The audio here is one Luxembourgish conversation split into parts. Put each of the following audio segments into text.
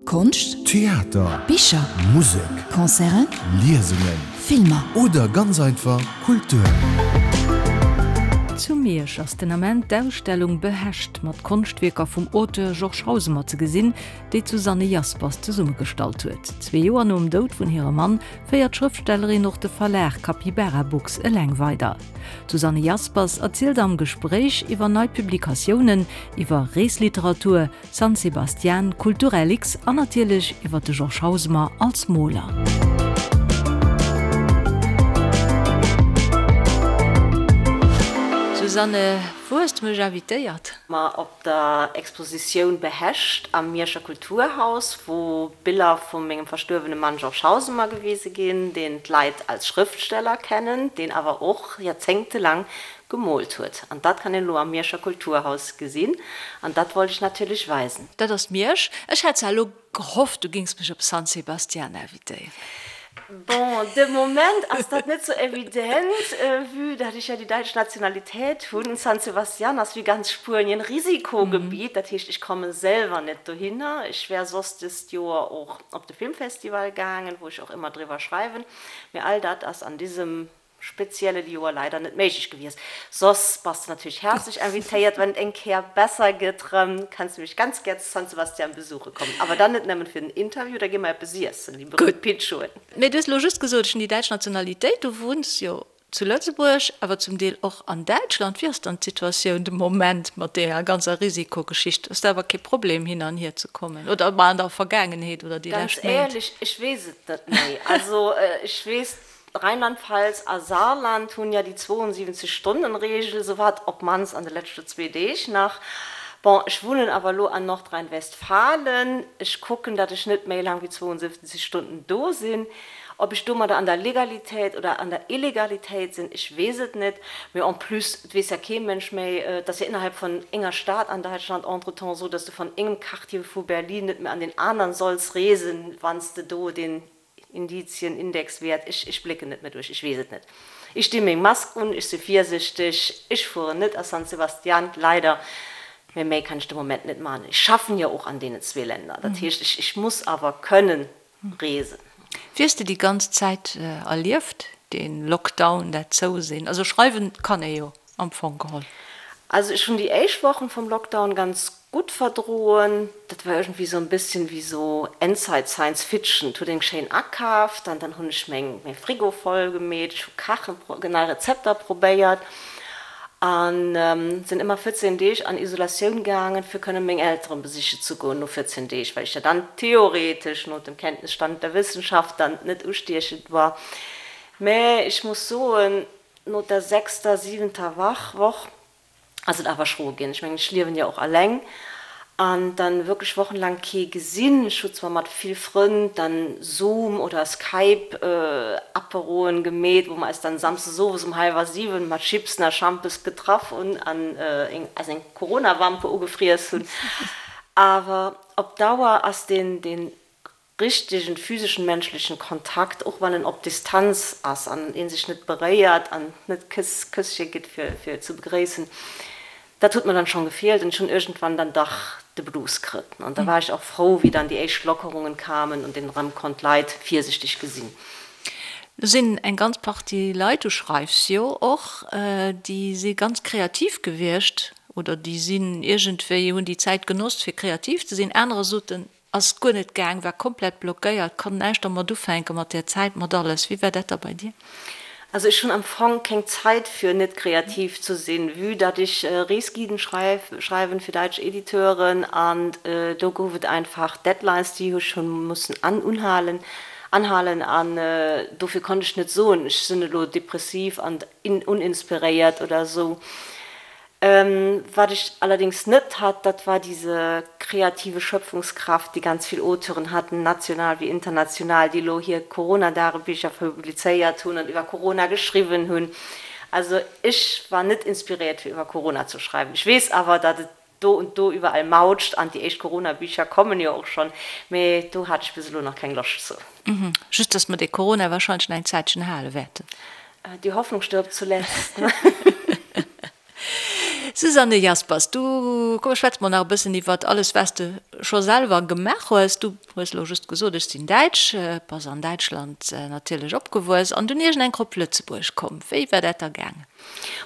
Konscht, Theater, Bicher, Musek, Concerten, Liesungen, Filmer. Oder ganz einfach Kultur. Zu Miersch ass den Ament d'Ausstellung Behecht mat Konschtwierker vum Auteur Georges Hausemer ze gesinn, déi d'Susanne Jaspers zesummegestallt huet. Zwee Joer nom Doud vun hirem Mann féiert d'Schrëftstellerin och de Verlag Capybara Books eleng weider. D'Susanne Jaspers erzielt am Gespréich iwwer nei Publikatiounen, iwwer Reesliteratur, San Sebastian, Kulturellix an natierlech iwwer de Georges Hausemer als Moler. Susanne, wou hues de mech invitéiert? Ma op der Expositioun Behecht am Mierscher Kulturhaus, wou Biller vu mengem verstuerwene Mann Georges Hausemer gewise ginn, deen d'Leit als Schrëftsteller kennen, deen awer och joerzéngtelang Gemoolt huet. An dat kann een elo am Mierscher Kulturhaus gesinn. An dat wollt ech natierlech weisen. Dat ass Miersch. Ech hat zwar elo gehofft, du géings mech op San Sebastian invitéieren. Bon, de Moment ass dat net sou evident, vue dat ech ja déi däitsch Nationalitéit hunn. San Sebastian ass wéi ganz Spuenien Risikogebiet, dat heescht, ech komme selwer net dohinner. Ech wär soss dëst Joer och op de Filmfestival gaangen, wou ech och ëmmer driwwer schreiwen, mee all dat ass an disem speziellen Joer leider net méiglech gewies. Soss bass de natierlech häerzlech invitéiert, wann et eng Kéier besser gëtt rëm, kanns de mech ganz gär zu San Sebastian besuche kommen. Awer dann net nëmmen fir den Interview, da gi mer eppes iessen, déi berühmt Pinchoen. Mee du hues elo just gesot, ech hunn déi däitsch Nationalitéit. Du wunns jo zu Lëtzebuerg, awer zum Deel och an Däitschland. Wéi ass dann d'Situatioun de Moment mat deeër ganzer Risikogeschicht? Ass dat awer kee Problem hin an hier ze kommen oder mar an der Vergaangenheet oder déi Ganz lescht Méint? éierlech, ech weess et net méi. Also ech weess, Rheinland-Pfalz a Saarland hunn ja déi 72 Stonnen-Reegel, sou war et op mannst an de leschte zwee Deeg nach. Bon, ech wunnen awer elo an Nordrhein-Westfalen, ech kucken, datt ech net méi laang wéi 72 Stunden do sinn. Ob ech domadder an der Legalitéit oder an der Illegalitéit sinn, ech weess et net. Mee en plus, et weess ja kee Mënsch méi, et ass ja innerhalb vun enger Stad an Däitschland entretemps esou, datt s de van engem Quartier vu Berlin net méi an deen aneren solls reesen, wann s de do deen Indizien, Indexwäert, ech, ech blécken net méi duerch, ech weess et net. Ech di meng Mask un, ech si virsichteg, ech fueren net a San Sebastian, leider, mä méi kann ech de Moment net maachen. Ech schaffen jo och an deenen zwee Länder, dat heescht, ech, ech muss awer kënnen reesen. Wéi hues de déi ganz Zäit erlieft, dee Lockdown, dat Zousinn? Also schreiwen kann ee jo. Am Fong geholl. Also ech hunn déi éischt Wochen vum Lockdown ganz gutt verdroen. Dat war iergendwéi sou en bësschen wéi sou Endzeit Science Fiction. Et huet een schéin akaaft an dann hunn ech meng mäi Frigo voll gemeet, ech hu kachen, nei Rezepter probéiert an sinn ëmmer 14 Deeg an Isolatioun gaangen fir kënnen meng Elteren besiche ze goen no 14 Deeg, well ech ja dann theoretesch no dem Kenntnisstand der Wissenschaft dann net ustiechend war. Mä ech muss soen, No der sechster, siwenter Wach, Woch ass et awer schro ginn. Ech mengen, ech liewen jo och alleng an dann wierklech wochenlaang kee gesinn. Ech hu zwar mat vill Frënn dann Zoom oder Skype Aperoen gemeet, wou mer eis dann samsdes owes um hallwer 7 mat Chipsen a Schampes getraff hunn an eis eng Corona-Wampe ugefriess hunn. Awer op Dauer ass deen, deen richtegen physeschen menschlechen Kontakt, och wann en op Distanz ass an een sech net beréiert an net Këss, Kësschen gitt fir fir ze begréissen, dat huet mer dann schon gefeelt an ech hunn iergendwann dann dach de Blues kritt an da war ech och frou wéi dann déi éischt Lockerungen kamen und een erëm konnt Leit virsichteg gesinn. Do sinn eng ganz Partie Leit, du schreifs jo och, déi si ganz kreativ gewiescht oder déi sinn iergendwéi, hunn déi Zäit genoss fir kreativ ze sinn, anerer soten, Ass guer net gaang, war komplett blockéiert, konnt näischt dermat ufänken, mat där Zäit, mat alles. Wéi war dat da bei dir? Also ech hunn am Fong keng Zait fir net kreativ ze sinn, vue datt ech Reesguiden schreiwen fir däitsch Editeuren an do gouf et einfach Deadlines déi ech hunn mussen unhalen anhalen an dofir konnt ech net soen ech sinn elo depressiv an uninspiréiert oder esou. Wat ech allerdings net hat, dat war diese kreative Schöpfungskraft, déi ganz vill Auteuren hatten, national wéi international, déi elo hir Corona-Dagebicher publizéiert hunn an iwwer Corona geschriwwen hunn. Also ech war net inspiréiert, fir iwwer Corona ze schreiwen. Ech weess awer, datt et do und do iwwerall mautscht an déi éischt Corona-Bicher kommen jo och schonn, mee do hat ech bis elo nach keng Loscht zu. Just, datt mer dee Corona wahrscheinlech nach eng Zäitchen hale wäerten. Die Hoffnung stirbt zuletzt. Susanne Jaspers, du, komm schwätz mol nach e bëssen iwwert alles wat s de scho selwer gemaach hues. Du hues elo just gesot, ech sinn Däitsch, bass an Däitschland natierlech opgewuess an dunn iergendeng op Lëtzebuerg komm. Wéi war dat da gaangen?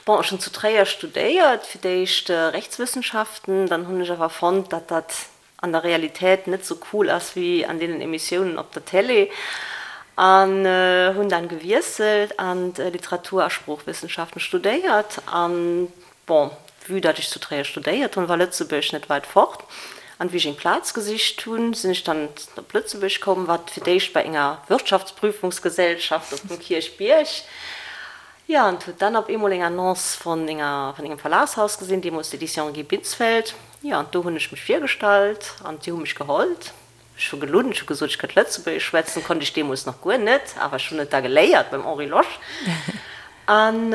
Bon, ech hunn zu Tréier studéiert, fir d'éischt Rechtswëssenschaften, dann hunn ech awer fonnt, datt dat an der Realität net sou cool ass wéi an deenen Emissiounen op der Télé an hunn dann gewiesselt an Literatur a Sproochwissenschaften studéiert an bon, vue datt ech zu Tréier studéiert hunn, war Lëtzebuerg net weit fort an wéi ech eng Plaz gesicht hunn, sinn ech dann op Lëtzebuerg komm, wat fir d'éischt bei enger Wirtschaftsprüfungsgesellschaft op dem Kierchbierg. Jo, an huet dann op eemol eng Annonce vun enger, vun engem Verlagshaus gesinn, deemools d'Éditions Guy Binsfeld. Jo, an do hunn ech mech virgestallt an déi hu mech gehollt. Ech hu gelunn, ech hu gesot, ech kënnt Lëtzebuergesch schwätzen, konnt ech deemools nach guer net, awer ech hunn et da geléiert beim Henri Losch. An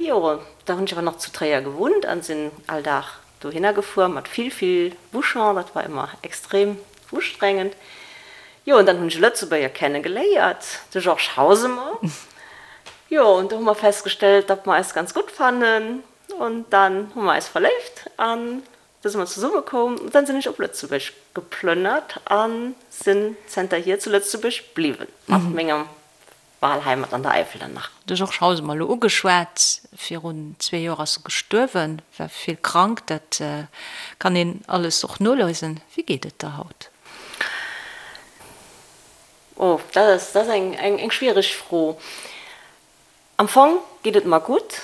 jo, da hunn ech awer nach zu Tréier gewunnt an sinn all Dag Dohinner gefuer mat vill vill Bouchon, dat war ëmmer extrem ustrengend. Jo, an dann hunn ech e Lëtzebuerger kenne geléiert, de Georges Hausemer. Jo, an do hu mer festgestellt, datt mer eis ganz gutt fannen, an dann hu mer eis verléift an da si mer zesumme koum. An dann sinn ech op Lëtzebuerg geplënnert a sinn zanterhier zu Lëtzebuerg bliwwen mat mengem Wahlheimat an der Äifel dann nach. De Georges Hausemer elo ugeschwat, virun zwee Joer ass e gestuerwen, war vill krank, dat kann een alles och noliesen. Wéi geet et der haut? Oh, dat ass, dat ass eng, eng schwiereg Fro. Am Fong geet et mer gutt.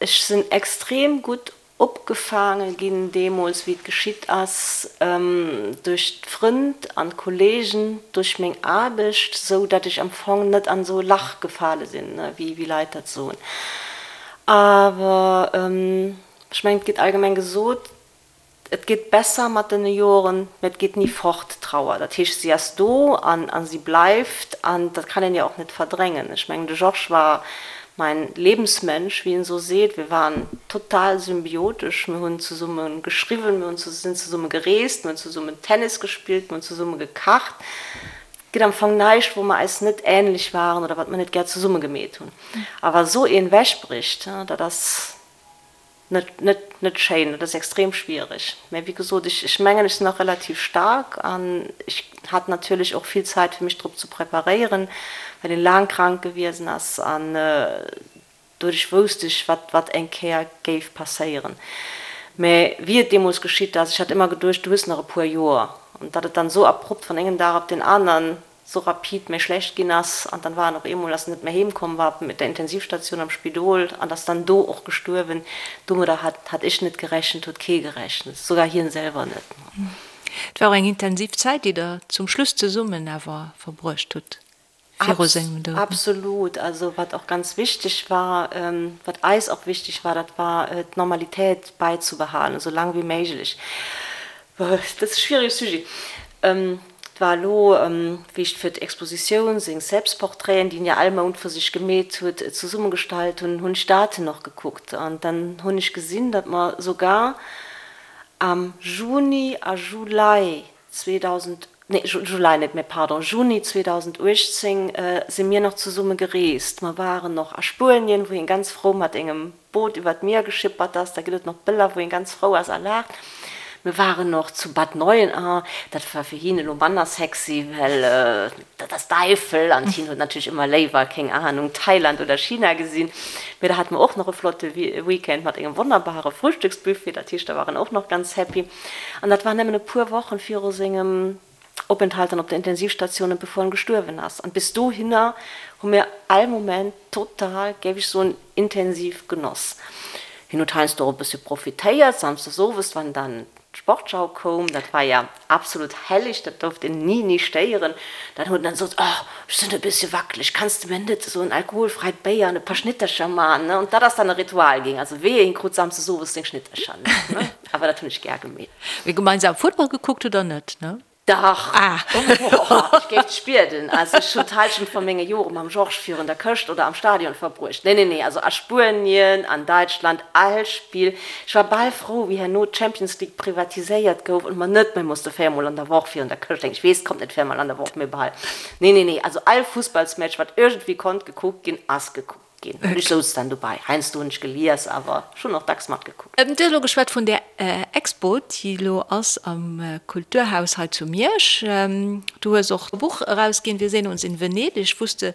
Ech sinn extrem gutt Opgefaange ginn deemools, wéi et geschitt ass, duerch d'Frënd an d'Kollegen, duerch meng Aarbecht, sou datt ech am Fong net an esou e Lach gefale sinn, wéi Leit dat soen. Awer ech mengen, et gétt allgemeng gesot, et gétt besser mat den Joren, mä et geet ni fort, d'Trauer. Dat heescht, si ass do an si bleift an dat kann een jo och net verdrängen. Ech mengen, de Georges war Mein Lebensmensch, wéi een esou seet. Wir waren total symbiotesch. Mir hunn zesumme geschriwwen, mir hunn sinn zesumme gereest, mir hunn zesummen Tennis gespillt, mir hunn zesumme gekacht. Et gëtt am Fong näischt, wou mer eis net änlech waren oder wat mer net gär zesumme gemeet hunn. A wa sou een wechbricht, dat ass Net, net, net schéin, dat ass extrem schwiereg. Mä wéi gesot, ech, ech mengen, ech sinn nach relativ staark an ech hat natierlech och vill Zäit, fir mech drop ze preparéieren, well en laang krank gewiesen ass an doduerch wousst ech, wat, wat eng Kéier géif passéieren. Mä wéi et deemools geschitt ass, ech hat ëmmer geduecht, du hues nach e puer Joer, an datt et dann esou abrupt vun engem Dag op deen aneren sou rapid méi schlecht ginn ass an dann war en op eemol, ass en net méi heem komm, war op der Intensivstation am Spidol an ass dann do och gestuerwen. Domadder hat hat ech net gerechent, huet kee gerechent, sougar hien selwer net. Et war och eng intensiv Zäit, déi der zum Schluss zesummen awer verbruecht hutt viru sengem Doud. Absolut. Also wat och ganz wichteg war, wat eis och wichteg war, dat war d'Normalitéit bäizebehalen, esou laang wéi méiglech. Dat ass e schwierege Sujet. Et war elo, wéi ech fir d'Expositioun seng Selbstportraiten, déi en jo all Mount vu sech gemeet huet, zesummegestallt hunn, hunn ech d'Daten och gekuckt. An dann hunn ech gesinn, datt mer sougar am Juni a Juli 2000, nee, Juli net, mä pardon, Juni 2018 si mir nach zesumme gereest. Mer waren och a Spuenien, wou hien ganz frou mat engem Boot iwwer d'Mier geschippert ass, da gëtt et nach Bëller wou een ganz frou ass a laacht. Mir waren och zu Bad Neuenahr, dat war fir hien elo manner sexy, well dat ass d'Eifel an hien huet natierlech ëmmer léiwer, keng Ahnung, Thailand oder China gesinn. Mee da hate mer och nach e flotte Weekend mat engem wonnerbare Frühstücksbuffet, dat heescht da war en och nach ganz happy. An dat war nëmmen e puer Wochen viru sengem Openthalt dann op der Intensivstation, bevor en gestuerwen ass. An bis dohinner hu mir all Moment total, géif ech soen, intensiv genoss. Hien huet heiansdo och e bëssche profitéiert, samsdes owes, wann dann d'Sportschau koum, dat war ja absolut helleg, dat durft een ni, ni stéieren, dann huet en dann gesot, Oh, ech sinn e bëssche wackeleg, kanns de mir net esou en alkoholfreit Béier an e paar Schnittercher man, ne? Und dat ass dann e Ritual ginn, also wehe, hien krut samsdes owes seng Schnittercher net, ne? Awer dat hunn ech gär gemeet. Mee gemeinsam Futtball gekuckt hutt der net, ne? Dach! Boah, ech géif dech bieden. Also ech hunn d'Halschent vu menge Jore mam Georges virun der Këscht oder am Stadion verbruecht. Nee, nee, nee, also a Spuenien, an Däitschland, all Spill. Ech war bal frou, wéi herno d'Champions League privatiséiert gouf und mer net méi musste véiermol an der Woch virun der Këscht hänken. Ech weess, et kommt net véiermol an der Woch, mee bal. Nee, nee, nee, also all Fussballsmatch, wat iergendwéi konnt gekuckt ginn, ass gekuckt. Ginn. An ech souz dann dobei. Heiansdo hunn ech gelies, awer ech hunn och dacks matgekuckt. Du hues elo geschwat vun där Expo, déi elo ass am Kulturhaus hei zu Miersch. Du hues och e Buch erausginn, Wir sehen uns in Venedig, wou s de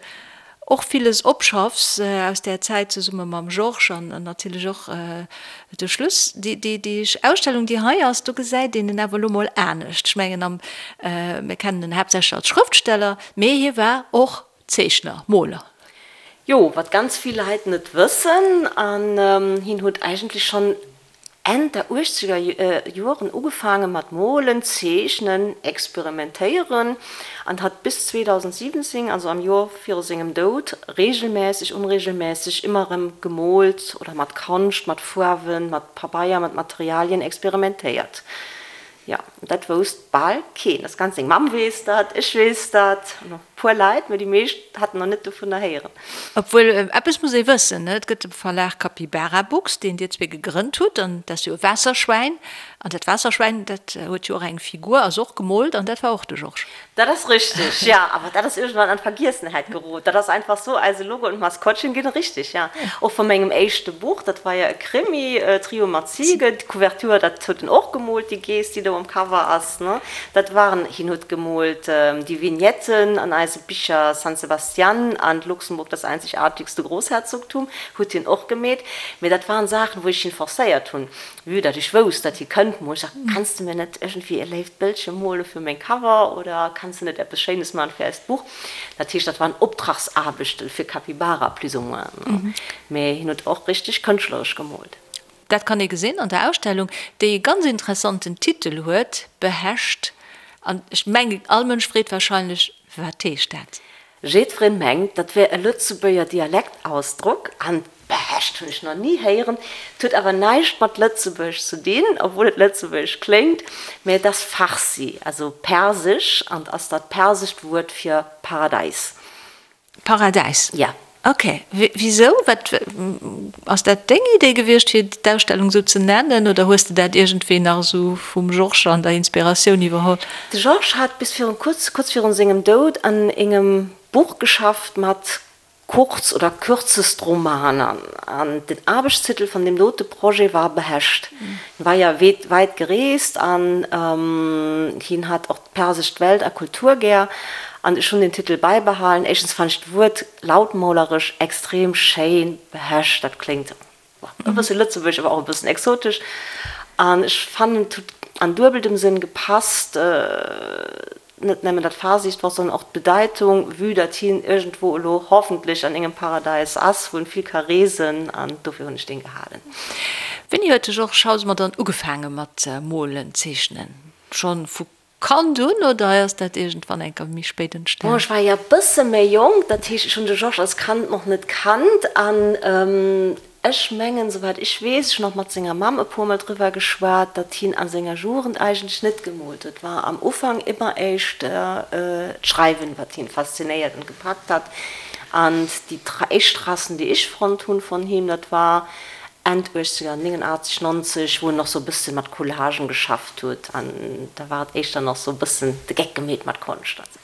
och villes opschaffs aus där Zäit zesumme mam Georges an natierlech och de Schluss. Déi Ausstellung, déi hei ass, do gesäit een en awer elo mol anescht. Ech mengen, mir kennen en haaptsächlech als Schrëftsteller, mee hie war och Zeechner, Moler. Jo, wat ganz vill Leit net wëssen, an hien huet eigentlech schonn Enn der uechzeger Joren ugefaange mat molen, zeechnen, experimentéieren an hat bis 2017, also am Joer viru sengem Doud, reegelmässeg, onreegelmässeg ëmmer erëm gemoolt oder mat Konscht, mat Fuarwen, mat Pabeier, mat Materialien experimentéiert. Jo, dat wousst bal keen. Dat ganz seng Mamm weess dat, ech weess dat, an och e puer Leit, mä déi meescht haten nach net dovunner héieren. Obwuel, eppes muss ee wëssen, et gëtt de Verlag Capybara Books, deen dir zwee gegrënnt hutt, an dat ass jo e Waasserschwäin. An dat Waasserschwäin, dat huet jo och eng Figur, ass och gemoolt, an dat war och de Georges. Dat ass richteg, jo, awer dat ass iergendwann an d'Vergiessenheit gerot. Dat ass einfach sou, eise Logo und Maskottchen ginn richteg, jo. Och vu mengem éischte Buch, dat war jo e Krimi, Trio mat Ziege, d'Couverture, dat huet en och gemoolt, déi Geess, déi do um Cover ass, ne. Dat waren, hien huet gemoolt déi Vignetten an eise Bicher San Sebastian an Luxemburg, das einzigartigste Großherzogtum, huet hien och gemeet. Mee dat waren Saachen, wou ech hien forcéiert hunn. Vue datt ech wousst, datt hie kënnt, mool ech gesagt, Kanns de mir net iergendwéi e léift Bëldche mole fir meng Cover oder kanns de net eppes Schéines man fir eist Buch? Dat heescht, dat waren Optragsaarbechten fir Capybara plus ou moins, mä hien huet och richteg kënschtleresch gemoolt. Dat kann ee gesinn an der Ausstellung, déi e ganz interessanten Titel huet, Behescht. An ech mengen, all Mënsch freet wahrscheinlech, Wat heescht dat? Jiddwereen mengt, dat wär e Lëtzebuerger Dialektausdrock, an Behescht hunn ech nach ni héieren. Et huet awer näischt mat Lëtzebuerg ze dinn, obwuel et lëtzebuergesch kléngt, mä et ass Farsi, also Persesch, an ass dat persescht Wuert fir Paradäis. Paradäis? Ja. Ok. Wisou? Wat, ass dat deng Idee gewiescht, fir d'Ausstellung esou ze nennen, oder hues de dat iergendwéi nach esou vum Georges an der Inspiratioun iwwerholl? De Georges hat bis virun kuerz, kuerz virun sengem Doud an engem Buch geschafft mat Kurz oder Kürzestromaner an den Aarbechtstitel van deem dote Projet war Behescht. Hien war ja weit gereest an hien hat och d'persesch Welt a Kultur gär an ech hunn den Titel beibehalen. Éischtens fannt ech d'Wuert lautmoleresch extrem schéin, Behescht, dat kléngt E bësse lëtzebuergesch, awer och e bëssen exotesch. An ech fannen, et huet an duebeltem Sënn gepasst, net nëmmen dat farsicht Wort, sondern och d'Bedeitung, vue datt hien iergendwou elo hoffentlech an engem Paradäis ass, wou en vill ka reesen. An dofir hunn ech deen gehalen. Wéini huet de Georges Hausemer dann ugefaange mat molen, zeechnen? Schonn vu Kand un oder ass dat iergendwann eng Kéier méi spéit Bon, entstan? ech war jo e bësse méi jonk, dat heescht, ech hunn de Georges als Kand nach net kannt an ech mengen, souwäit ech weess, ech hunn och mat senger Mamm e puermol driwwer geschwat, datt hien a senger Jugend eigentlech net gemoolt huet. Et war am Ufank ëmmer éischt d'Schreiwen, wat hien faszinéiert an gepackt hat. An déi éischt Tracen, déi ech fonnt hunn vun him, dat war Enn 80er, 89, 90, wou en nach sou e bëssen mat Collagen geschafft huet an da war et éischter nach sou e bëssen de Geck gemeet mat Konscht an sou.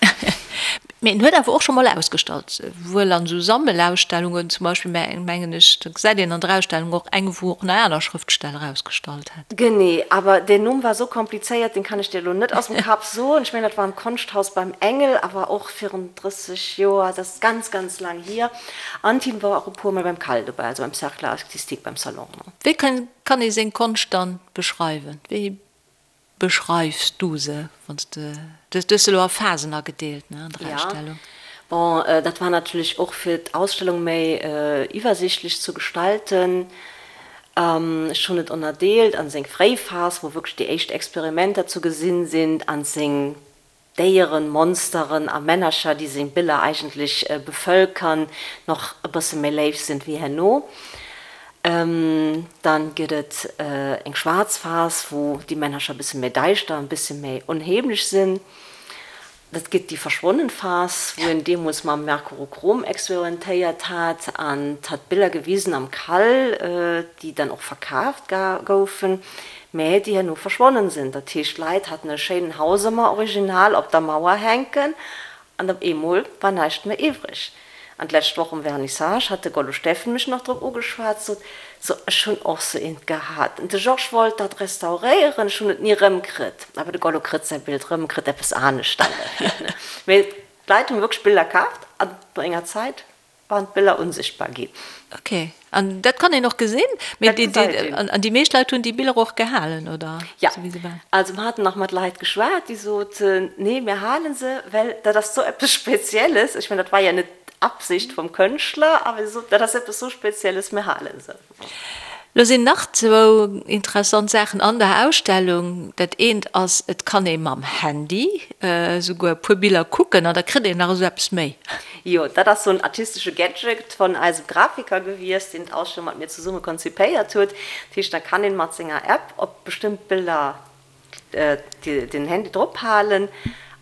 Mee en huet awer och scho mol ausgestallt, wuel an sou Sammelausstellungen zum Beispill, mä mengen ech, da gesäit een an der Ausstellung och eng, wou och nach aner Schrëftsteller ausgestallt hat. Genee, awer deen Numm war sou komplizéiert, deen kann ech dir elo net aus dem Kapp soen. Ech mengen, dat war am Konschthaus beim Engel, awer och virun 30 Joer, dat ass ganz, ganz laang hier. An d'Tine war och e puer mol beim Cal dobäi, also beim Cercle artistique, beim Salon. Wéi kann ee seng Konscht dann beschreiwen? Wéi beschreifs du se, wann s de, du hues se elo a Phasen agedeelt, ne, an der Ausstellung? Jo, bon, dat war natierlech och fir d'Ausstellung méi iwwersichtlech zu gestalten. Ech hunn et ënnerdeelt an seng fréi Phas, wou wierklech déi éischt Experimenter zu gesinn sinn, an seng Déieren, Monsteren a Männercher, déi seng Biller eigentlech bevëlkern, nach e bësse méi léif sinn wéi herno. Dann gëtt et eng schwaarz Phas, wou déi Männercher e bësse méi däischter, e bësse méi onheemlech sinn. Dat gëtt déi verschwonnen Phas, wou en deemools mam Mercurochrom experimentéiert hat an hat Biller gewisen am Kall, déi dann och verkaaft goufen. Mä déi herno verschwonnen sinn. Dat heescht, d'Leit haten e schéinen Hausemer Original op der Mauer hänken an op eemol war näischt méi iwwreg. An d'lescht Woch um Vernissage hat de Gollo Steffen mech nach drop ugeschwat, sot, So, ech hunn och sou eent gehat. De Georges wollt dat restauréieren, ech hunn et ni rëmkritt. Awer de Gollo kritt säi Bild rëm, kritt eppes anescht dann derfir. Mee d'Leit hunn wierklech Biller kaaft an no enger Zäit waren d'Biller unsichtbar ginn. Ok, an dat kann een och gesinn? Mee dat gesäit een. An déi meescht Leit hunn déi Biller och gehalen, oder? Ja, also mer haten nach mat Leit geschwat, déi soten, nee, mir hale se, well dat ass sou eppes Spezielles. Ech mengen, dat war jo net d'Absicht vum Kënschtler, awer si soten, dat ass eppes sou Spezielles, mir hale se. Lo sinn nach zwou interessant Saachen an der Ausstellung. Dat eent ass, et kann ee mam Handy esouguer e puer Biller kucken an da kritt een nach esou eppes méi. Jo, dat ass sou en artistesche Gadget von eisem Grafiker gewiescht, deen d'Ausstellung mat mir zesumme konzipéiert huet. Dat heescht, da kann een mat senger App op bestëmmt Biller den Handy drop halen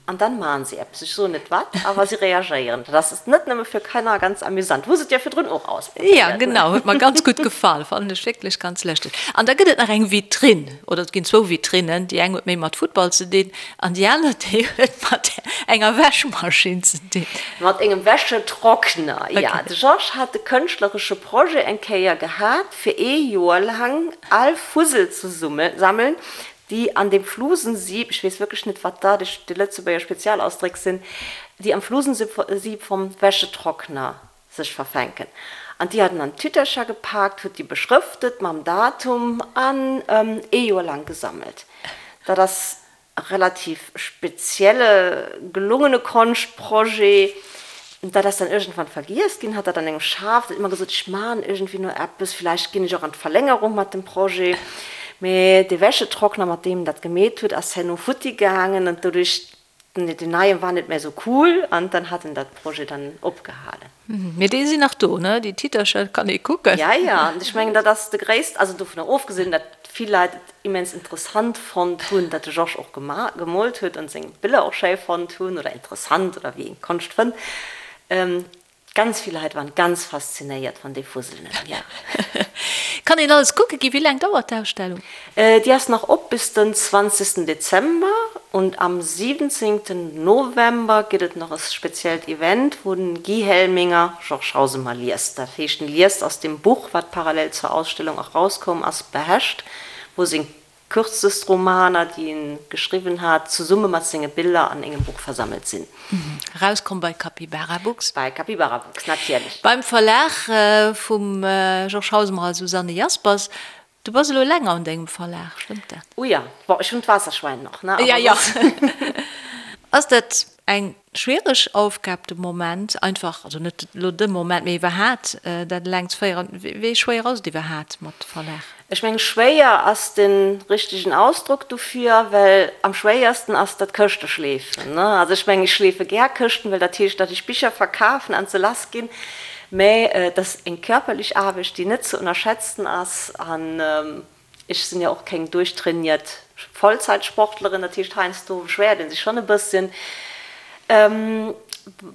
an dann maachen si eppes. Ech soen net wat, awer si reagéieren. Dat ass net nëmme fir Kanner ganz amüsant. Hu se et jo virdrun och ausprobéiert. Ja, genau, huet mer ganz gutt gefall. Fannen ech wierklech ganz lëschteg. An da gëtt et nach eng Vitrinn, oder et ginn zwou Vitrinnen. Déi eng huet méi mat Futtball ze dinn an déi aner, déi huet mat enger Wäschmaschinn ze dinn. Mat engem Wäschetrockner, ja. De Georges hat de kënschtleresche Projet eng Kéier gehat, fir ee Joer laang al Fussel ze sammeln, déi an dem Flusensieb, ech weess wierklech net, wat dat déi Lëtzebuerger Spezialausdréck sinn, déi am Flusensieb vom Wäschetrockner sech verfänken. An déi hat en an Tütercher gepaakt, huet déi beschrëftet mam Datum an ee Joer laang gesammelt. Dat ass relativ spezielle gelungene Konschtprojet. Dat ass dann iergendwann vergiess ginn, hat dat an engem Schaf, huet ëmmer gesot, ech man iergendwéi no eppes, villäicht ginn ech och an d'Verlängerung mat dem Projet. Mee dee Wäschetrockner, mat deem en dat gemeet huet, ass herno futti gaangen an doduerch, deen neien war net méi esou cool an dann hat en dat Projet dann opgehalen. Mee déi sinn nach do, ne? Déi Titercher kann ee kucken. Ja, ja, an ech mengen, dat ass de gréisst, also dovunner ofgesinn, datt vill Leit et immens interessant fonnt hunn, datt de Georges och gemoolt huet an seng Biller och schéi fonnt hunn oder interessant oder wéi een Konscht fënnt. Ganz vill Leit waren ganz faszinéiert van dee Fusselnen, ja. Kann een alles kucke ginn? Wéi laang dauert d'Ausstellung? Déi ass nach op bis den 20 Dezember und am 17 November gëtt et nach e speziellt Event, wou den Guy Helminger Georges Hausemer liest. Dat heescht, en liest aus dem Buch, wat parallel zur Ausstellung och rauskoum ass, Behecht, wou seng kürzest Romaner, déi en geschriwwen hat, zesumme mat senge Biller an engem Buch versammelt sinn. Rauskomm bei Capybara Books. Bei Capybara Books, natierlech. Beim Verlag vum Georges Hausemer a Susanne Jaspers. Du bass elo länger un dengem Verlag, stëmmt dat? Oh ja, bon, ech hunn d'Waasserschwäin nach, ne? Ja, ja. Ass dat eng schwiereg Aufgab de Moment, einfach, also net elo de Moment, mee iwwerhaat dat eleng ze féieren? Wéi schwéier ass et iwwerhaat mat Verlag? Ech mengen, schwéier ass de richtegen Ausdrock dofir, well am schwéiersten ass dat Këschte schleefen, ne? Also ech mengen, ech schleefe gär Këschten, well dat heescht, datt ech Bicher verkafen an se lass ginn. Mä et ass eng körperlech Aarbecht, déi net ze ënnerschätzen ass. An ech sinn jo och keng duerchtrainiert Vollzeitsportlerin, dat heescht heiansdo beschwéiert ee sech schonn e bësschen.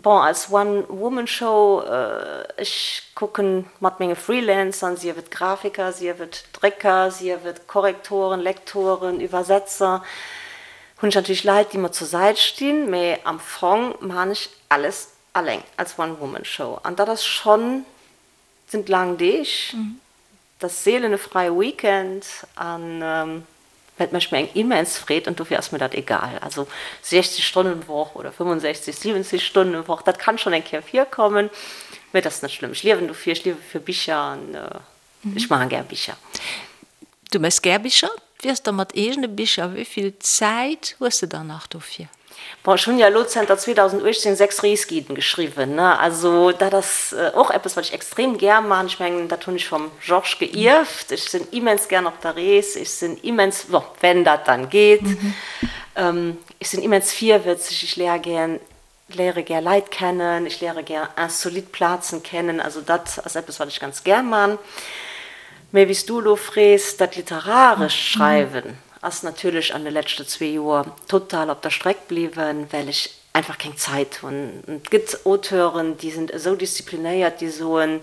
Bon, als One-Woman-Show, ech kucken mat menge Freelancern, sief et Grafiker, sief et Drécker, sief et Korrektoren, Lektoren, Iwwersetzer, hunn ech natierlech Leit, déi mer zur Säit stinn, mä am Fong man ech alles Alleng als One-Woman-Show, an dat ass schonn, et sinn laang Deeg, et ass seelen e fräie Weekend, an mä et mécht mir eng immens Freed an dofir ass mir dat egal. Also 60 Stonnen Woch oder 65, 70 Stonnen Woch, dat kann schonn eng Kéier virkommen, mä et ass net schlëmm. Ech liewen dofir, ech liewe fir Bicher an ech maache gär Bicher. Du méchs gär Bicher? Wéi ass da mat eegene Bicher? Wéi vill Zäit hues de dann nach dofir? Bon, ech hunn jo elo zënter 2018 6 Reesguiden geschriwwen, ne? Also dat ass och eppes, wat ech extrem gär maachen. Ech mengen, dat hunn ech vum Georges geierft. Ech sinn immens gär op der Rees. Ech sinn immens, bon, wenn dat dann geet, ech sinn immens virwëtzeg. Ech léier gär léiere gär Leit kennen, ech léiere gär insolite Plazen kennen, also dat ass eppes wat ech ganz gär man. Mä wéi s du elo frees, dat literarescht Schreiwen ass natierlech an de leschte zwee Joer total op der Streck bliwwen, well ech einfach keng Zäit hunn. Et gëtt Auteuren, déi sinn esou disziplinéiert, déi soen,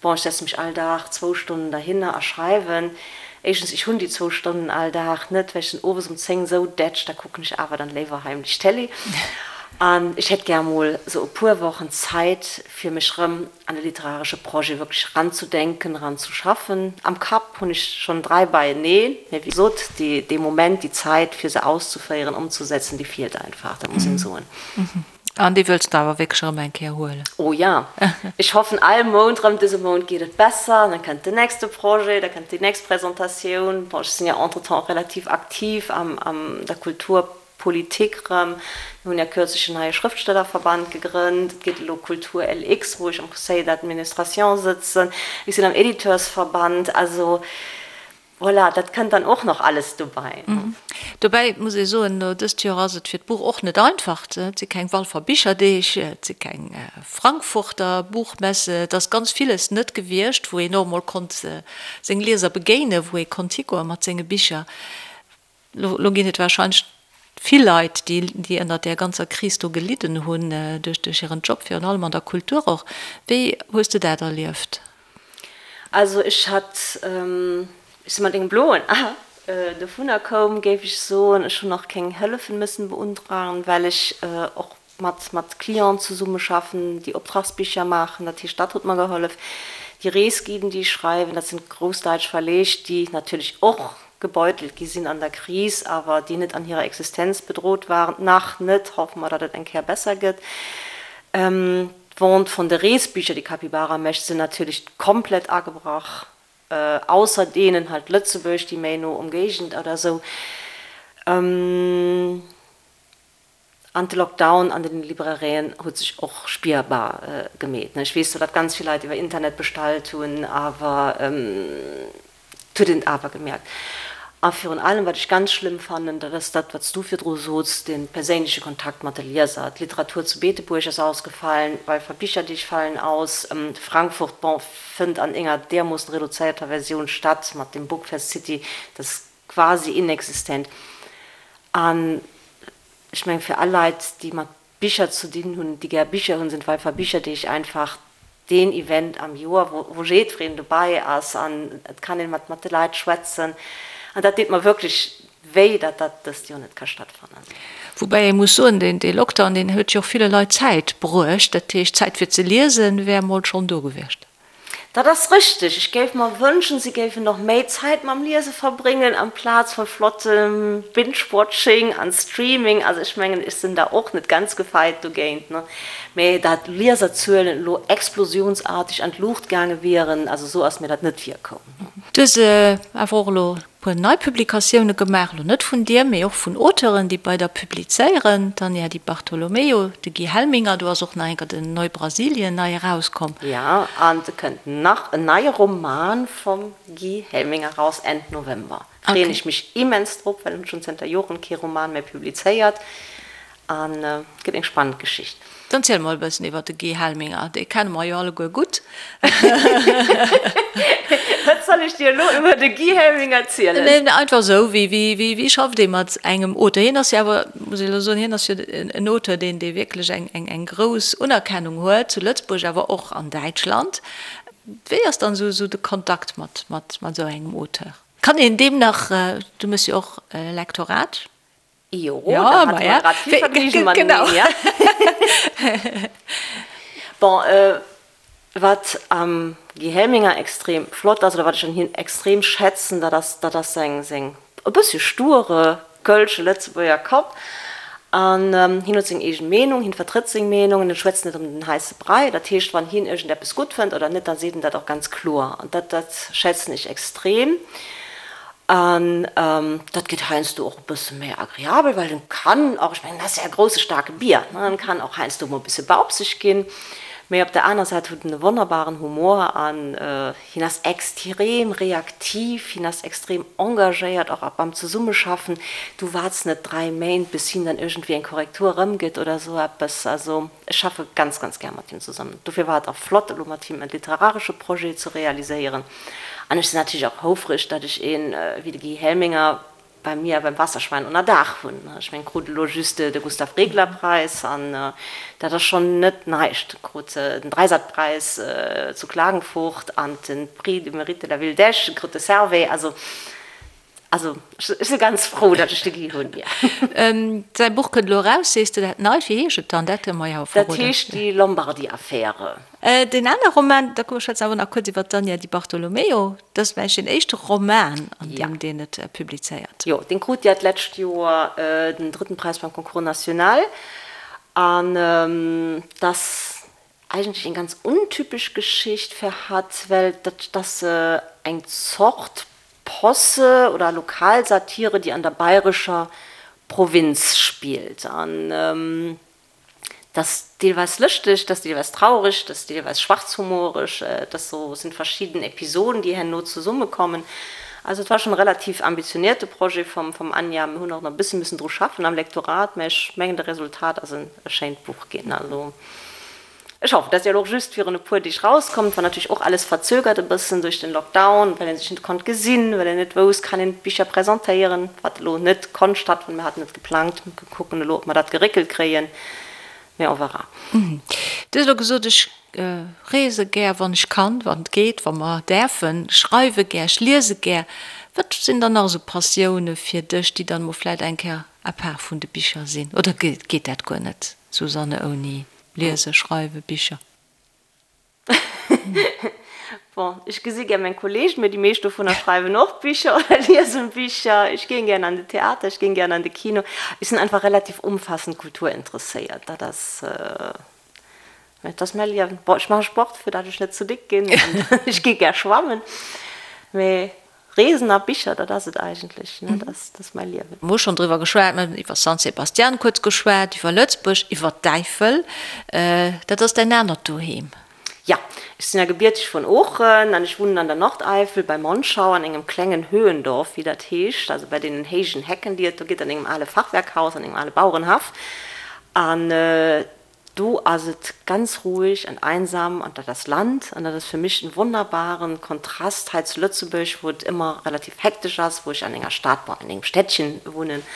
bon, ech setze mech all Dag zwou Stonnen derhinner a schreiwen. Éischtens, ech hunn déi zwou Stonnen all Dag net, well ech sinn owes um 10 esou dätsch, da kucken ech awer dann léiwer heimlech Télé. An ech hätt gär emol esou e puer Wochen Zäit, fir mech rëm an e literaresche Projet wierklech eranzedenken, eranzeschaffen. Am Kapp hunn ech schonn 3 beieneen, mä wéi gesot, dee Moment, déi Zäit, fir se auszuféieren, ëmzesetzen, déi feelt einfach, dat muss een soen. An déi wëlls de awer wierklech erëm eng Kéier huelen? Oh ja, ech hoffen all Mount erëm, dëse Mount geet et besser, an dann kënnt den nächste Projet, da kënnt déi nächst Presentatioun. Bon, ech sinn jo entretemps och relativ aktiv am der Kulturpolitik erëm. Mir hunn ja kürzlech en neie Schrëftstellerverband gegrënnt, et geet elo Kultur LX, wou ech am Conseil d'administration sëtzen, ech sinn am Editeursverband, also Voilà, dat kënnt dann och nach alles dobäi. Dobäi muss ee soen, elo dëst Joer ass et fir d'Buch och net einfach. Et si keng Walfer Bicherdeeg, et si keng Frankfurter Buchmesse, et ass ganz villes net gewiescht, wou een och emol konnt seng Lieser begéinen, wou ee konnt higoe mat senge Bicher. Elo ginn et warscheinlech vill Leit, déi ënnert där ganzer Kris do gelidden hunn, duerch hiren Job, virun allem an der Kultur och. Wéi hues de dat erlieft? Also ech hat, ech si mat engem bloen A dovunner koum, géif ech soen. Ech hunn och keng Hëllefen mëssen beuntragen, well ech och mat mat Clienten zesummeschaffen, déi Optragsbicher maachen. Dat heescht, dat huet mer gehollef. Déi Reesguiden, déi ech schreiwen, dat sinn grouss däitsch Verleeg, déi natierlech och gebeutelt gi sinn an der Kris, awer déi net an hirer Existenz bedrot waren, nach net, hoffe mer, datt et eng Kéier besser gëtt. D'Vente vun de Reesbicher, déi Capybara mécht, sinn natierlech komplett agebrach, ausser deenen halt Lëtzebuerg, déi méi no Ëmgéigend oder esou. An de Lockdown an den Librairien huet sech och spierbar gemeet. Ech weess zwar, datt ganz vill Leit iwwer Internet bestallt hunn, awer et huet een et awer gemierkt. A virun allem, wat ech ganz schlëmm fannen, dat ass dat, wat s du virdru sots, de perséinleche Kontakt mat de Lieser. D'Literatur zu Beetebuerg ass ausgefallen, Walfer Bicherdeeg falen aus, Frankfurt, bon, fënnt an enger deermoossen reduzéierter Versioun statt mat dem Bookfest City, dat quasi inexistent. An ech mengen, fir all Leit, déi mat Bicher ze dinn hunn, déi gär Bicher hunn, sinn d'Walfer Bicherdeeg einfach deen Event am Joer, wou jiddwereen dobäi ass an et kann een mat mat de Leit schwätzen. An dat deet mer wierklech wéi, datt dat dëst Joer net ka stattfannen. Woubäi ee muss soen, deen Lockdown, deen huet jo och ville Leit Zäit bruecht. Dat heescht, Zäit fir ze liesen wär emol schonn do gewiescht. Dat ass richteg. Ech géif mer wënschen, si géifen och méi Zäit mam Liese verbréngen, amplaz vu flottem Binge-Watching an Streaming. Also ech mengen, ech sinn da och net ganz gefeit dogéint, ne? Mä dat d'Lieserzuelen elo explosionsartig an d'Luucht gaange wieren, also esou ass mir dat net virkomm. Du hues awer och elo puer nei Publikatioune gemaach, elo net vun dir, mee och vun Auteuren, déi bei der publizéieren, d'Anja Di Bartolomeo, de Guy Helminger, do ass och nach enker den Neubrasilien nei erauskomm. Jo, an et kënnt nach en neie Roman vum Guy Helminger raus Enn November. Freeën ech mech immens drop, well en huet schonn zënter Joren kee Roman méi publizéiert an et gëtt eng spannend Geschicht. Dann ziel mol e bëssen iwwer de Guy Helminger, dee kenne mer jo alleguer gutt. Wat soll ech dir elo iwwer de Guy Helminger zielen? Neen, einfach esou, wéi, wéi, wéi, wéi schafft ee mat engem Auteur? Hien ass jo awer, muss ech elo soen, hien ass jo en Auteur, deen, dee wierklech eng, eng, eng grouss Unerkennung huet, zu Lëtzebuerg, awer och an Däitschland. Wéi ass dann esou, esou de Kontakt mat, mat, mat esou engem Auteur? Kann een deem nach, du méchs jo och Lektorat? Jo, da hate mer grad vill Vergnügen mateneen, ja. Bon, wat am Guy Helminger extrem flott ass, oder wat ech un him extrem schätzen, dat ass, dat ass seng, seng e bëssche sture kölsche Lëtzebuerger Kapp. An hien huet seng eegen Meenung, hien vertrëtt seng Meenung an en schwätzt net ëm den heisse Brei. Dat heescht, wann hien iergendeppes gutt fënnt oder net, da seet en dat och ganz kloer. An dat, dat schätzen ech extrem. An dat geet heiansdo och e bësse méi agreabel, well en kann och, ech mengen, en ass ja e grousse staarke Bier, ne, en kann och heiansdo mol e bësse baupseg ginn. Mee op der aner Säit huet en e wonnerbaren Humor an hien ass extrem reaktiv, hien ass extrem engagéiert och beim Zesummeschaffen. Du waarts net 3 Méint, bis hien dann iergendwéi eng Korrektur erëmgëtt oder esou eppes. Also ech schaffe ganz, ganz gär mat him zesummen. Dofir war et och flott, elo mat him e literaresche Projet ze realiséieren. An ech sinn natierlech och houfreg, datt ech een wéi de Guy Helminger bei mir beim Wasserschwein ënner Daach hunn. Ech mengen, krut elo just de Gustav Regler Preis an dat ass schonn net näischt. Krut den Dreisat-Preis zu Klagenfurt an de Prix du Mérite de la Ville d'Esch, krut de Servais. Also. Also ech si ganz frou, datt ech de Guy hunn, jo. Säi Buch kënnt elo eraus, sees de, dat neit. Wéi heescht et dann? Dat kënne mer jo verroden. Dat heescht Die Lombardi-Affäre. Deen anere Roman, da komm, schwätzen awer nach kuerz iwwer d'Anja Di Bartolomeo. Dat ass vläicht deen éischte Roman, an deem deen et publizéiert. Jo, deen krut ja d'lescht Joer den drëtten Präis beim Concours national. An dat eigentlech eng ganz untypesch Geschicht fir hatt, well dat ass eng Zort Posse oder Lokalsatire, déi an der bayrescher Provinz spillt. An dat ass deelweis lëschteg, dat ass deelweis traureg, dat ass deelweis schwarzhumoreg, dat ass sou, et sinn verschidden Episoden, déi herno zesummekommen. Also et war schonn e relativ ambitionierte Projet vum vum Anja. Mir hunn och nach e bësse missen dru schaffen am Lektorat, mä ech mengen de Resultat ass en e schéint Buch ginn. Also Ech hoffen, dat ass jo elo och just virun e puer Deeg rauskomm. Et war natierlech och alles verzögert e bëssen duerch den Lockdown, well ee sech net konnt gesinn, well een net wousst, kann een d'Bicher presentéieren, wat elo net konnt stattfannen. Mir haten et geplangt, mir kucken elo, ob mer dat geréckelt kréien, mä on verra. Du hues elo gesot, ech reese gär, wann ech kann, wann et geet, wa mer däerfen, schreiwe gär, ech liese gär. Wat sinn dann nach esou Passioune fir dech, déi dann emol vläicht eng Kéier à part vun de Bicher sinn? Oder geet dat guer net, Susanne, ouni Liese, schreiwe, Bicher. Bon, ech gesi gär meng Kollegen, mee déi meescht dovunner schreiwen och Bicher oder liesen Bicher. Ech géing gären an de Theater, ech géing gären an de Kino. Ech sinn einfach relativ umfassend kulturinteresséiert. Dat ass, dat ass mäi Liewen. Bon, ech maache Sport, fir dat ech net ze déck ginn an ech gi gär schwammen, mee Reesen a Bicher, dat ass et eigentlech, ne? Dat ass mäi Liewen. Mir hu schonn driwwer geschwat, mir hunn iwwer San Sebastian kuerz geschwat, iwwer Lëtzebuerg, iwwer d'Äifel. Dat ass däin anert Doheem. Jo, ech sinn ja gebierteg vun Oochen an ech wunnen an der Nordeifel bei Monschau an engem klengen Höhendorf, wéi dat heescht, also bei deenen héijen Hecken, déi et do gëtt, an engem ale Fachwerkhaus, an engem ale Bauerenhaff. An Do ass et ganz ruhig an einsam an dat ass Land an dat ass fir mech en wonnerbaren Kontrast hei zu Lëtzebuerg, wou et ëmmer relativ hektesch ass, wou ech an enger Stad, bon an engem Städtchen wunnen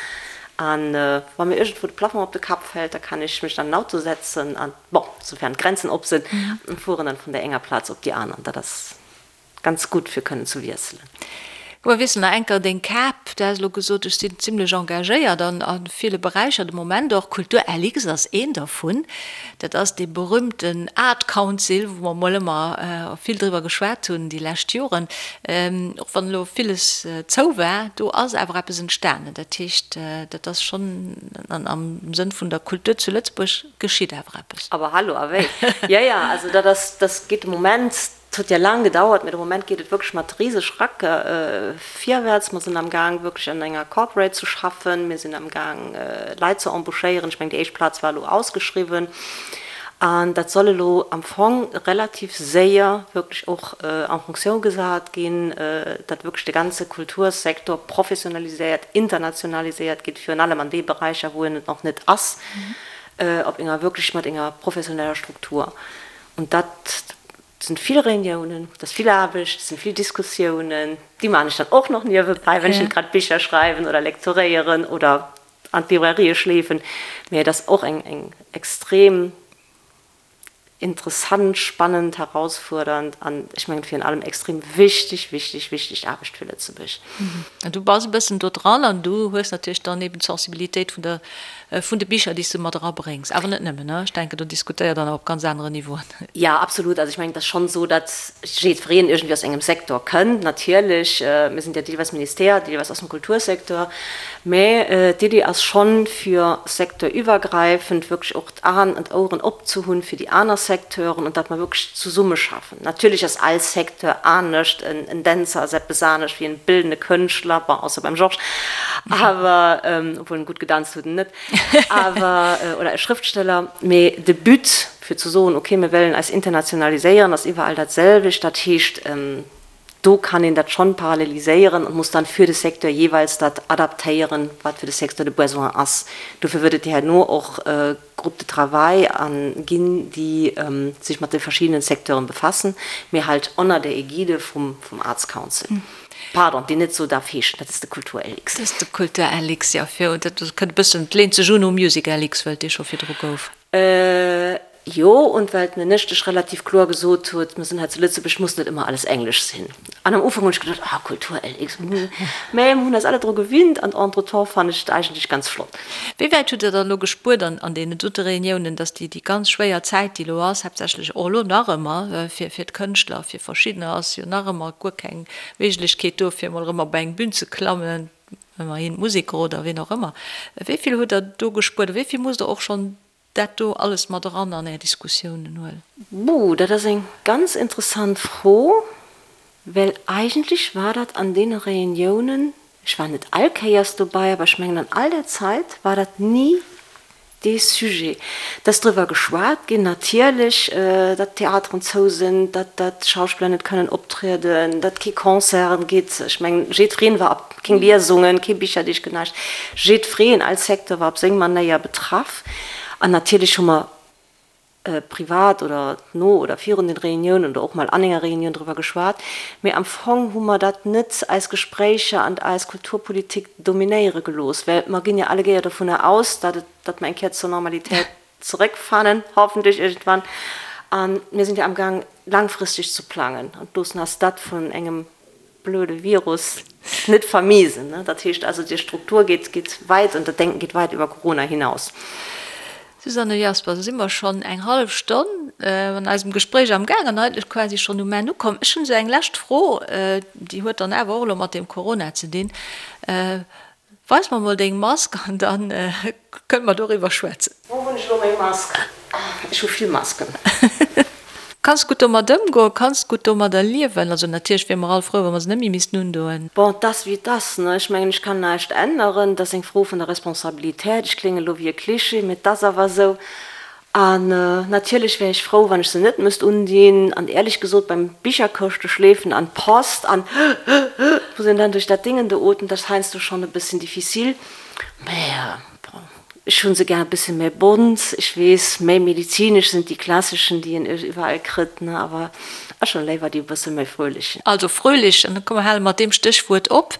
an wa mir iergendwou de Plafong op de Kapp fält, da kann ech mech an den Auto setzen an, bon, soufern d'Grenzen op sinn, an fueren dann vun der enger Plaz op déi aner an dat ass Ganz gutt fir kënnen ze wiesselen. Komm mer wiesselen nach enker deng Kap. Du has elo gesot, ech sinn zimlech engagéiert an a ville Beräicher de Moment och. Kultur LX ass een dervun. Dat ass dee berühmten Art Council, wou mer mol ëmmer vill driwwer geschwat hunn déi lescht Joren. Och wann elo villes zou war, do ass awer eppes entstanen. Dat heescht, dat ass schonn am Sënn vun der Kultur zu Lëtzebuerg geschitt awer eppes. Aber hallo, a wéi? Jo, jo, also dat ass, dat geet de Moment Et huet ja laang gedauert, mee de Moment geet et wierklech mat riseg Rack virwäerts. Mer sinn am Gaang wierklech an enger Corporate ze schaffen. Mir sinn am Gaang Leit ze embauchéieren. Ech mengen déi éischt Plaz war elo ausgeschriwwen an dat soll elo am Fong relativ séier wierklech och en fonction gesat ginn, datt wierklech de ganze Kultursektor professionaliséiert, internationaliséiert gétt, virun allem an de Beräicher wou en et nach net ass, op enger wierklech mat enger professioneller Struktur. Und dat sinn vill Reuniounen, dat ass vill Aarbecht, dat sinn vill Diskussiounen, déi maachen ech dann och nach niewebäi, wann ech net grad Bicher schreiwen oder lektoréieren oder an d'Librairie schleefen. Mee et ass och eng eng extrem interessant, spannend, herausfuerdernd an ech mengen virun allem extrem wichteg, wichteg, wichteg Aarbecht fir Lëtzebuerg. An du bass e bëssen do dran an du hues natierlech dann eben d'Sensibilitéit vun der Vun de Bicher, déi s du mat erabréngs. Awer net nëmmen, ne? Ech denken, do diskutéiert Der nach op ganz aneren Niveauen. Jo, absolut. Also ech mengen, et ass schonn esou, datt jiddwereen iergendwéi aus engem Secteur kënnt. Natierlech, mir sinn jo deelweis Ministère, deelweis aus dem Kultursecteur. Mä d'Iddi ass schonn, fir secteurüwwergräifend wierklech och d'Aen an d'Oueren opzehunn fir déi aner Secteuren an datt mer wierklech zesummeschaffen. Natierlech ass all Secteur anescht, en Dänzer ass eppes anescht wéi en bildende Kënschtler, bon, ausser beim Georges, awer, obwuel en gutt gedanzt huet, en net, awer, oder e Schrëftsteller. Mee de But, fir ze soen, okay, mir wëllen eis internationaliséieren, ass iwwerall dat selwecht. Dat heescht, do kann een dat schonn paralleliséieren und muss dann für de Secteur jeeweils dat adaptéieren, wat fir de Secteur de Besoin ass. Dofir wërt et herno och Groupes de travail ginn, déi sech mat de verschiddenen Secteuren befassen, mee halt ënner der Ägide vum Arts Council. Pardon, déi net esou darf heeschen, dat ass de Kultur LX. Dat ass de Kultur LX, jo. Dat kënnt e bëssen, et leent sech un u Music LX, well et dee scho virdru gouf. Jo, und well d'Ministesch relativ kloer gesot huet, mir sinn hei zu Lëtzebuerg, muss net ëmmer alles Englesch sinn. An am Ufank hunn ech geduecht, ah, Kultur LX, hm, mä mir hunn eis alle dru gewinnt an entretemps fannen ech et eigentlech ganz flott. Wéi wäit hutt Der dann elo gespuert an an deenen dote Reuniounen, dass déi déi ganz schwéier Zäit, déi elo ass, haaptsächlech och elo nach ëmmer fir fir d'Kënschtler, fir verschiddener ass jo nach ëmmer guer keng Méiglechkeet do, fir emol erëm op eng Bün ze klammen, ëmmerhin d'Museker oder ween och ëmmer. Wéi vill hutt Der do gespuert a wéi vill musst Der och schonn dat do alles mat eran an Är Diskussiounen huelen? Buh, dat ass eng ganz interessant Fro, well eigentlech war dat an deene Reuniounen, ech war net all Kéiers dobei, awer ech mengen an all där Zait war dat ni dee Sujet. Et ass driwwer geschwat ginn natierlech, datt d'Theateren zou sinn, datt d'Schauspiller net kënnen optrieden, datt kee Concerten gitt. Ech mengen jiddwereen war op, keng Liesungen, kee Bicherdeeg, näischt. Jiddwereen, all Secteur war op seng Manéier betraff. An natierlech hu mer privat oder no oder virun den Reuniounen oder och mol an enger Reunioun driwwer geschwat, mee am Fong hu mer dat net eis Gespréicher an eis Kulturpolitik dominéiere gelooss, well mer ginn jo alleguéier dovunner aus, datt et, datt mer eng Kéier zur Normalitéit zeréckfannen, hoffentlech iergendwann. A mir sinn jo amgaang langfristeg ze plangen an loossen eis dat vun engem blöde Virus net vermiesen. Dat heescht also, déi Struktur geet, geet weit und dat Denken geht weit über Corona hinaus. Susanne Jaspers, Elo si mer schonn eng hallef Stonn an eisem Gespréich am Gaang an eigentlech quasi schonn um Enn ukomm. Ech hunn esou eng lescht Fro, déi huet dann awer och elo mat deem Corona ze dinn. Weis mer mol deng Mask an dann kënne mer doriwwer schwätzen. Wou hunn ech elo meng Mask? Ech hu vill Masken. Kanns gutt domat ëmgoen, kanns gutt domadder liewen. Also natierlech wiere mer all frou, wa mer se net méi missten undoen. Bon, 't ass wéi 't ass, ne? Ech mengen, ech kann näischt änneren. 't ass eng Fro vun der Responsabilität. Ech klénge lo wéi e Klischee, mee 't ass awer esou. An natierlech wär ech frou, wann ech se net müsst undinn. An éierlech gesot, beim Bicherkëschte schleefen an d'Post an muss een dann duerch dat Dingen do ootmen, dat ass heiansdo schonn e bësschen difficile. Mä bon, ech hu se gär e bësse méi bont. Ech weess, méi medizinesch sinn déi klasseschen, déi een iwwerall kritt, ne, awer ech hunn léiwer déi e bësse méi fröhlich. Also fröhlich, an da komm mer hale mat deem Stéchwuert op.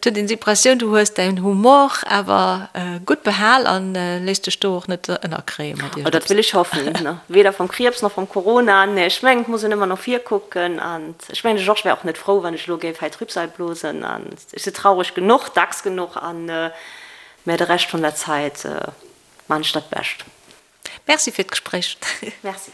Et huet een d'Impressioun, du hues däin Humor awer gutt behal an léiss dech do och net ënnerkréie mat iergendeppes. Oh, dat wëll ech hoffen, weder vom Kriibs nach vom Corona. Nee, ech mengen, et muss een ëmmer no vir kucken. An ech mengen, de Georges wär och net frou, wann ech elo géif hei Trübsal blosen. An ech si traureg genuch, dacks genuch, an mä de Rescht vun der Zäit man ech dat Bescht. Merci fir d'Gespréich. Merci.